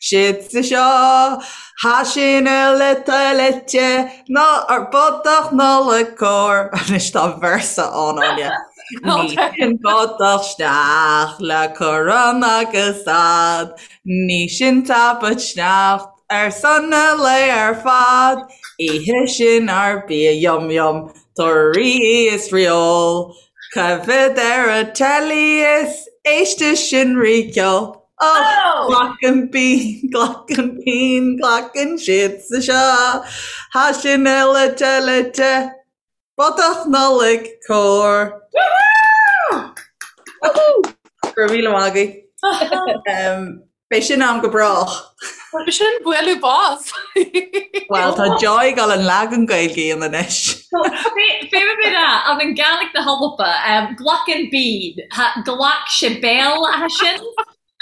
siad sa seo. Thá sin uile toilite, ná ar bodach Nollaig cóir. Anois tá véarsa ann, Áine. Ní sin bodach sneachta le corann agus ad, ní sin tapat sneachta ar son an lae ar fad, Ithe sin ár bia yum yum, torthaí is feoil, coimhead ar an teilí is éiste sin rí ceol. Oh! Glacann bíonn, glacann bíonn, glacann siad sa seo, thá sin uile toilite. Bodach Nollaig cóir! Woohoo! Go raibh míle maith agaibh. Beidh sin a'm go brách. Sin bualadh bos. Bhuel, tá Joy ag dul an leagan Gaeilge a dhéanamh anois. Fé mar a an an Gàidhlig na hAlba, glacann bean, ghlac sé béal atha sin.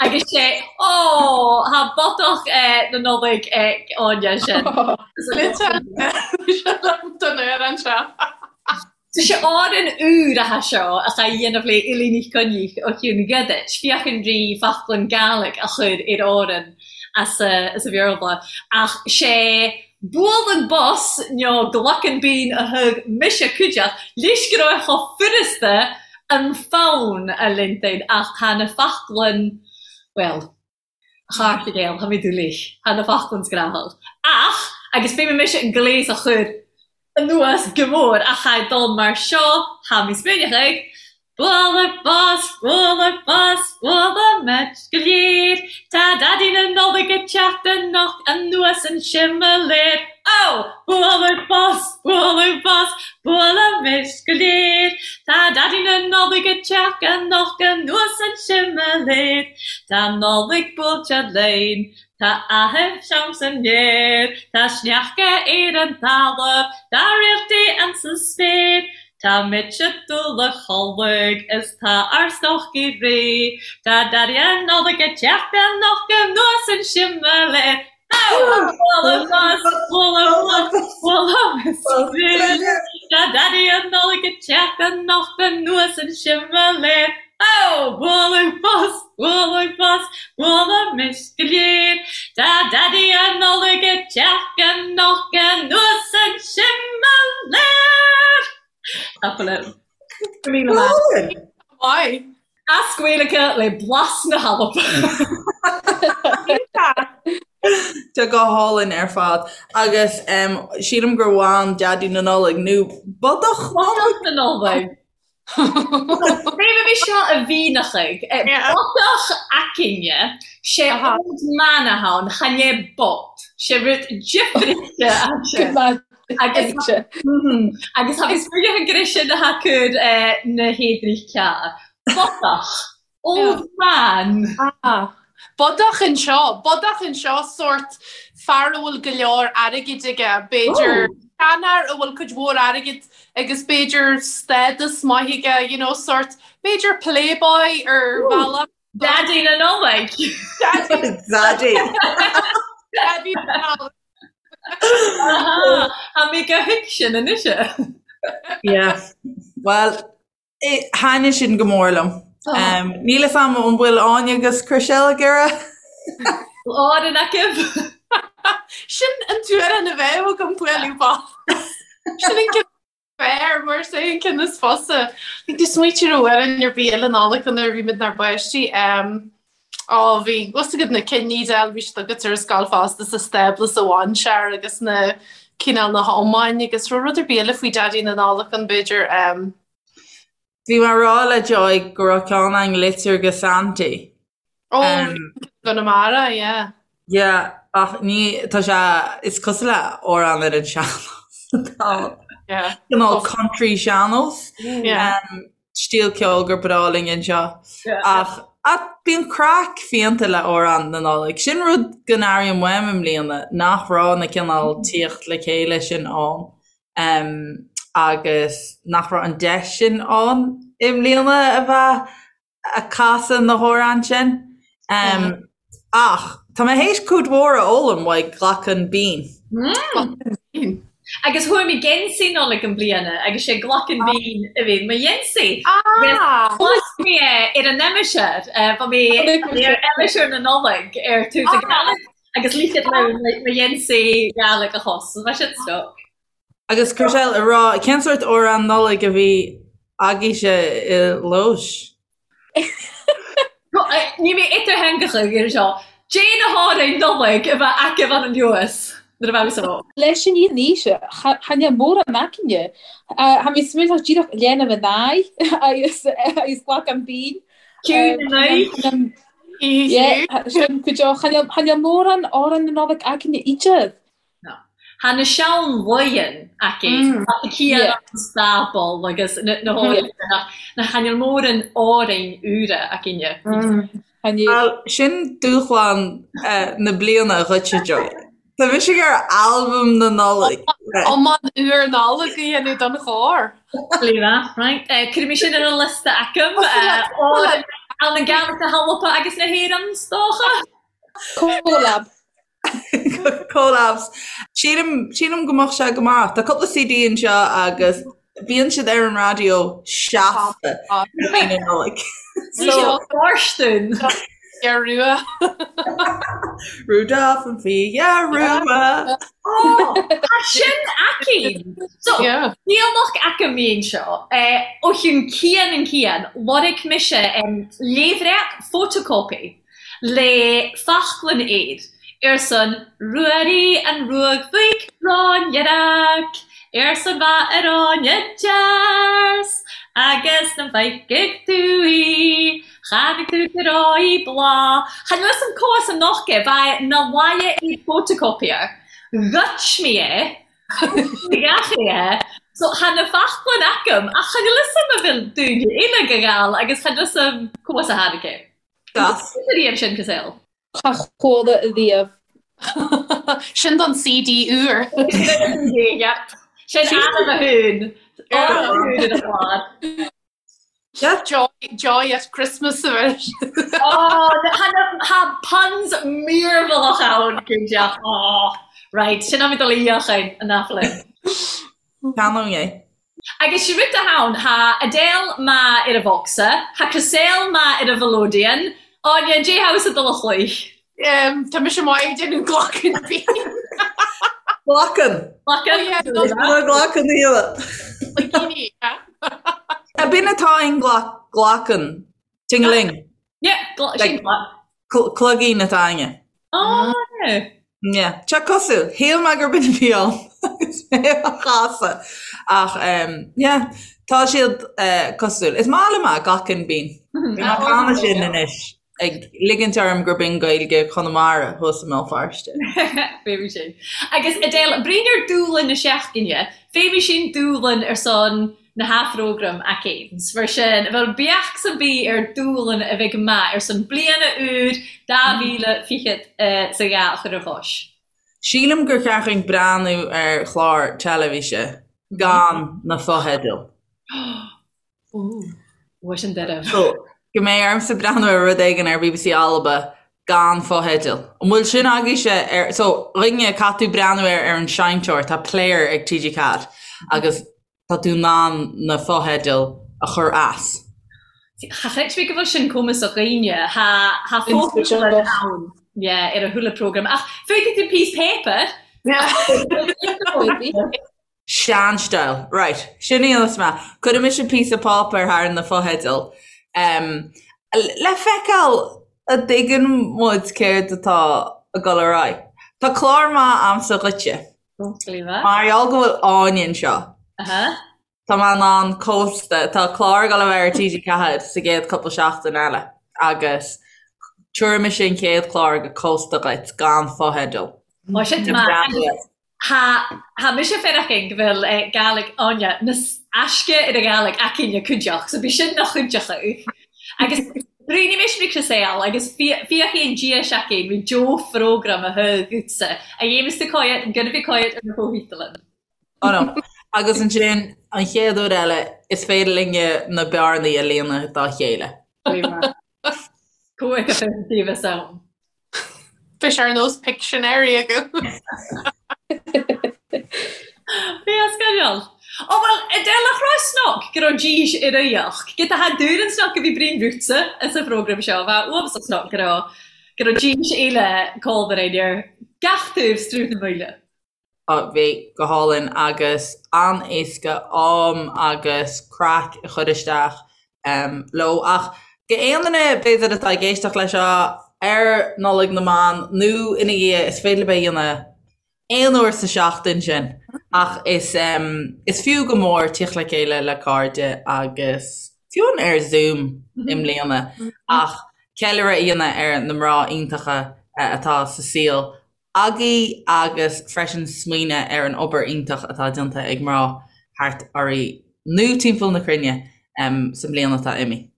Agus sé, Ó, thá bodach na Nollag ag Áine sin. Don fhear anseo. Tá sé Árainn úr atá seo a cha dhéanamh le Eilín Uí Choinnich ó Chiúin Ghiodait, féachann rí Foclann Gàidhlig a chur ar Árainn as a Bhéarla. Ach sé bualann bos nó glacann bean a thug mise cuideachd leis go raibh chomh furasta an fonn a lintain ach tá na foclainn, bhuel, thart ag éal, tá mé dúlaoich, tá na foclainn scrathach. Ach, agus fé mise an gléas a chur anuas go mór ach tha dul mar seo, tha mi smaoineachadh ag Bualadh bos, bualadh bos, bualadh go léir, Tá Daidí na Nollag ag teacht anocht anuas an similéar. Ó! Bualadh bos, bualadh bos, bualadh go léir, Tá Daidí na Nollag ag teacht anocht anuas an similéar. Tá Nollaig buailte linn, tá áthas ann san aer, Tá sneachta ar an talamh, tá réaltaí ann sa spéir. Tá mise dul a chodladh is tá ár stocaí réidh, Tá Daidí na Nollag ag teacht anocht anuas an similéar. Bualadh bos, bualadh bos, bualadh bos, Tá Daidí na Nollag ag teacht anocht anuas an similéar. Ó! Bualadh bos, bualadh bos, bualadh go léir. Tá Daidí na Nollag ag teacht anocht anuas an similéar! Tapadh liom. Go míle maith. Maith. As Gaeilge le blas na hAlban. Tá go hálainn ar fad. Agus sílim gur bhain Daidí na Nollag nó Bodach na Nollag. Bhí seo a mhíneachaigh. Bodach aicinne, sé old man atá ann, chan é bot. Sé rud difrichte ansin. Agus agus tha mi smaoineachadh gur é sin atá cur na héadraich cearr. Bodach. Old man. Ah. Bodach anseo, bodach anseo sórt fear a bhfuil go leor airgid aige, b'fhéidir seanfhear a bhfuil cuid mhór airgid agus b'fhéidir stádas maith aige, you know, sórt b'fhéidir playboy ar bhealach. Daidí na Nollag. Daddy. Daddy na Nollag. Tha mi gu thuigsinn anois. Yeah. Well, Thaitnigh sin go mór liom. Níl fhios a'm an bhfuil Áine agus Chriselle ag iarraidh. Árainn acu. Sin an t-amhrán a bheadh agam bualadh bos. Sin an ceann fearr mar is é an ceann is fusa. Bhí tú smaoitiú ar amhrán ar bith eile Nollag nuair a bhí muid inár bpáistí. Ó bhí fhios agat na cinn Edel bhí siad agat ar an scoil fosta sa stábla sa mhainséar agus na cineál na hiomáin agus raibh rud ar bith eile faoi Daidí na Nollag ann b'fhéidir. Bhí mé ag rá le Joy go raibh ceann againn litir go Santy. Ó, Conamara, yeah. Yeah, ach ní, tá sé, is cosúil le amhrán ar an sean-nós atá ann. Yeah. Cineál country sean-nós. Yeah. Stíl ceoil gur breá linn anseo. Yeah. Ach, ach bíonn craic fiánta le amhráin na Nollag. Sin rud go n-airím uaim i mbliana, nach raibh na cineál tíocht le chéile sin ann. Agus nach raibh an deis sin ann i mbliana a bheith ag casadh na hamhráin sin. Ach tá mé théis cuid mhór a fhoghlaim uaidh Glacán Binn. Agus fuair mé geansaí Nollag i mbliana agus sé Glacán Binn a bhí mo gheansaí. Agus chlos mé é ar an aimsir, bhí mé ar aimsir na Nollag ar tús an Ghaeilge agus ligfead liom mo gheansaí Gàidhlig a chos. Bheadh sin stoc. Agus Chriselle, a rá, cén sórt amhrán Nollag a bhí agaibhse i Laois? Ní mé idirtheangacha ar seo. Dè na h-òrain Nollag a bheith agaibh ann anuas nuair a bheadh so. Leis an fhírinne, chan eil mòran againne. Tha mi smaointeach dìreach leanbh an àidh agus agus Glacán Binn. Ciúin na n-aghaidh. Yeah, sin go deo. Chan eil mòran òrain na Nollag againne idir. No. Tha na sean-laighean aici, tá na cian an stáball agus na h-òrain na chan eil mòran òrain úra againne. Bhuel, sin dúshlán na bliana dhuitse, Joy. Tá mise ag iarraidh albam na Nollag. Iomann úr Nollag a dhéanamh don chór. Leela, right. Cuirfidh mé sin ar an liosta agam. Ann an Gàidhlig na hAlba agus na hÉireann, 's dócha. Collab. Collabs. Sílim, sílim go mbeadh sé go maith. Tá cúpla CD anseo agus bíonn siad ar an raidió seasta i mí na Nollag. So, Fóirstean. Fia Rua. Rudolph an Fia Rua. Ó, tá sin aici! So, níl ach agam mí anseo. Ó chionn cian an cian, lorg mise léibhreac photocopy. Le faclainn air, arsan Ruairí an Ruadh Mhic Gráinneach, arsan bha ar Áine dears, agus nam bhfeicfidh tú í, chanaidh tú go raibh í bláth. Chan eil fhios a'm cò as an noch é, bha e na bhaile i photocopier. Ghoid mi é, gach é. So tha na faclainn agam, ach chan eil fhios a'm a bheil daoine eile ag gabháil agus chan eil fhios a'm cò as a tháinig é. Das. Riamh sin Chriselle. Cha chuala riamh. Sin don CD úr. Yep. Sin ainm a thún. Ainm a thún ar an chlár. Yep. Joy, joy at Christmas a bheith. Oh, tha puns mearbhallach ann, cinnte. Oh, right, sin am dul i fhiachain an aiflinn. Ceannóidh é. Agus sé rud atá ann, tha Edel math air a bhocsa, tha Chriselle math air a mhelodeon, Áine, dè tha thusa dol a chluich? Tá mise maith ag déanamh Glacán Binn. Glacann. Glacann. Glacann íle. B'in atá in glacann. Ting-a-ling. Yeah, sin Cloigín atá againne. Oh, yeah. Yeah. Tá cosúil. Shíl mé gur b'in a bhí ann agus mé á chasadh. Ach, yeah, tá siad cosúil. Is maith liom é, Glacán Binn. Bhí mé ag canadh sin anois, ag ligint orm gur b'in Gaeilge Chonamara thuas i mBéal Feirste. Feumaidh sin. Agus Edel, bruidhinn air dùbhlan na seachdaine, feumaidh sinn dùbhlan air son na h-phrógraim againn. Mar sin, bheil beachd am bith air dùbhlan a bheidh math air son bliadhna úr 2020 's a dhà a chur ar chois. Sílim gur cheart dhúinn breathnú ar chlár teilifíse gan na fotheidil. Bha sin deireadh. So, go mbeidh ormsa breathnú ar rud éigin ar bbc Alba gan fotheidil. An bhfuil sin agaibhse ar, so, dhuine, caithfidh tú breathnú air ar an seinnteoir, tá player ag TG4 agus tá tú in ann na fotheidil a chur as. Cha chreid mé go bhfuil sin cumasach dhaoine. Tha fotheidil ann. Yeah, ar a chuile program. Ach fuair tú piece paper? Sean-style. Right. Sin í an is maith. Cuirfidh mise píosa páipéir thar na fotheidil. Um, le feiceáil an dtuigeann muid céard atá ag dul ar aghaidh. Tá clár maith a'msa dhuitse. Mar gheall go bhfuil Áine anseo. Aha. Tá mé in ann cósta, tá clár ag dul a bheith ar TG4 sa gcéad cúpla seachtain eile agus tabharfaidh mise an chéad chlár go cósta dhuit gan fotheidil. Ó sin maith. Tha mise feireachinn go bheil Gàidhlig Áine nas aisce air a Ghàidhlig aicinne cuideachd, so bidh sin na chuideachadh. Agus bruidhinn mise ri Chriséal agus fiachaidh an diais againn ri deo-phrógram a thug dhutsa, a dhéamas tú coimhead an gonna bhith coimhead ar na fo-theidealann. Oh no. Agus ansin, an chéad uair eile, is féidir linne na bearnaí a líonadh dá chéile. Cumhaidh a bheith taobh is ann. Bheadh sé ar nós Pictionary agam. Bhí as sceideal. Ó bhuel, Edel a chrois snoc go raibh dís ar aíocht. Gid a tha dúr an snoc a bhí brín rútsa as an phrógram seo, bheadh uamhas snoc go raibh go raibh dís eile cómhar aon ar gach taobh strúth na maoile. Bhí go hálainn agus an-éasca am agus craic a chur isteach leo. Ach go aon duine b'fhéidir atá ag éisteacht leis seo ar Nollaig na mBan nó ina dhiaidh, is féidir libh é a dhéanamh aon uair sa seachtain sin ach is is fiú go mór tíocht le chéile le cairde agus fiú amháin ar Zoom i mbliana ach ceiliúradh a dhéanamh ar na mná iontacha atá sa saol agaibh agus freisin smaoineamh ar an obair iontach atá déanta ag mná thart oraibh nó timpeall na cruinne sa mbliain atá imithe.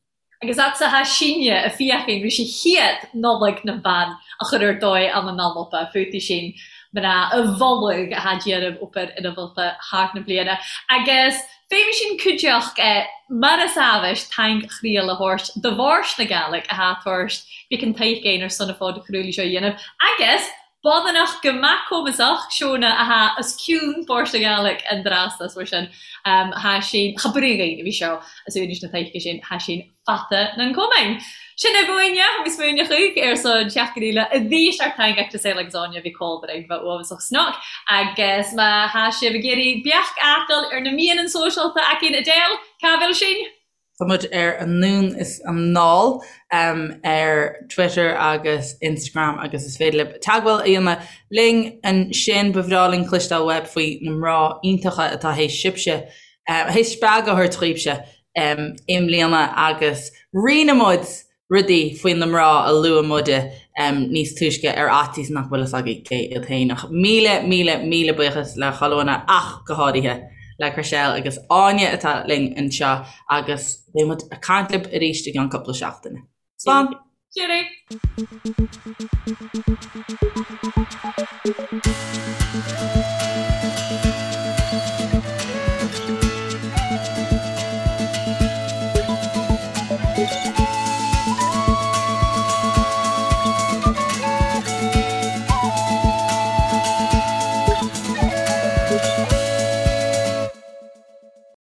Agus atsa tha sinne a fiachainn ris a chiad Nollaig nam Ban a chur ar dóigh ann an Alba fúthu sin mná a mholadh a tha déanamh obair inmholta thart na bliana agus Fé sin cuideachd mar as amhais taing chriall a thabhairt do Mhàirt na Gàidhlig a tha tabhairt bic an taoic ar son a fod chruaidh seo a dhéanamh agus Bodhanach go maith cumasach Seona a tha os cionn Mhàirt na Gàidhlig an dreasa mar sin tha sin cha brí a bhí seo as uainis na taoice sin tha sin fata nan cumainn. Sin é bhuaine, tha mi smaoineachadh ar son seachtain eile a bhí ar taing ag Saol agus Áine bhí cómhar ag bheith uathbhasach snoc agus má tha sibh ag iarraidh beach fhàghail ar na meadhanan sóisealta againn Edel, ca bheil sinn? Tá muid ar Anonn is Anall ar Twitter agus Instagram agus is féidir libh teagmháil a dhéanamh linn ansin. Ba bhreá linn cloisteáil uaibh faoi na mná iontacha atá théis sibhse, théis spreagadh a thabhairt dhaoibhse i mbliana agus rinne muid rudaí faoi na mná a luaigh muide níos túisce ar fhaitíos nach bhfuil fhios agaibh cé iad féin. Ach míle, míle, míle buíochas le chuile dhuine ach go háirithe le Chriselle agus Áine atá linn anseo agus beidh muid ag caint libh arís i gceann cúpla seachtaine. Slán! Cheerio!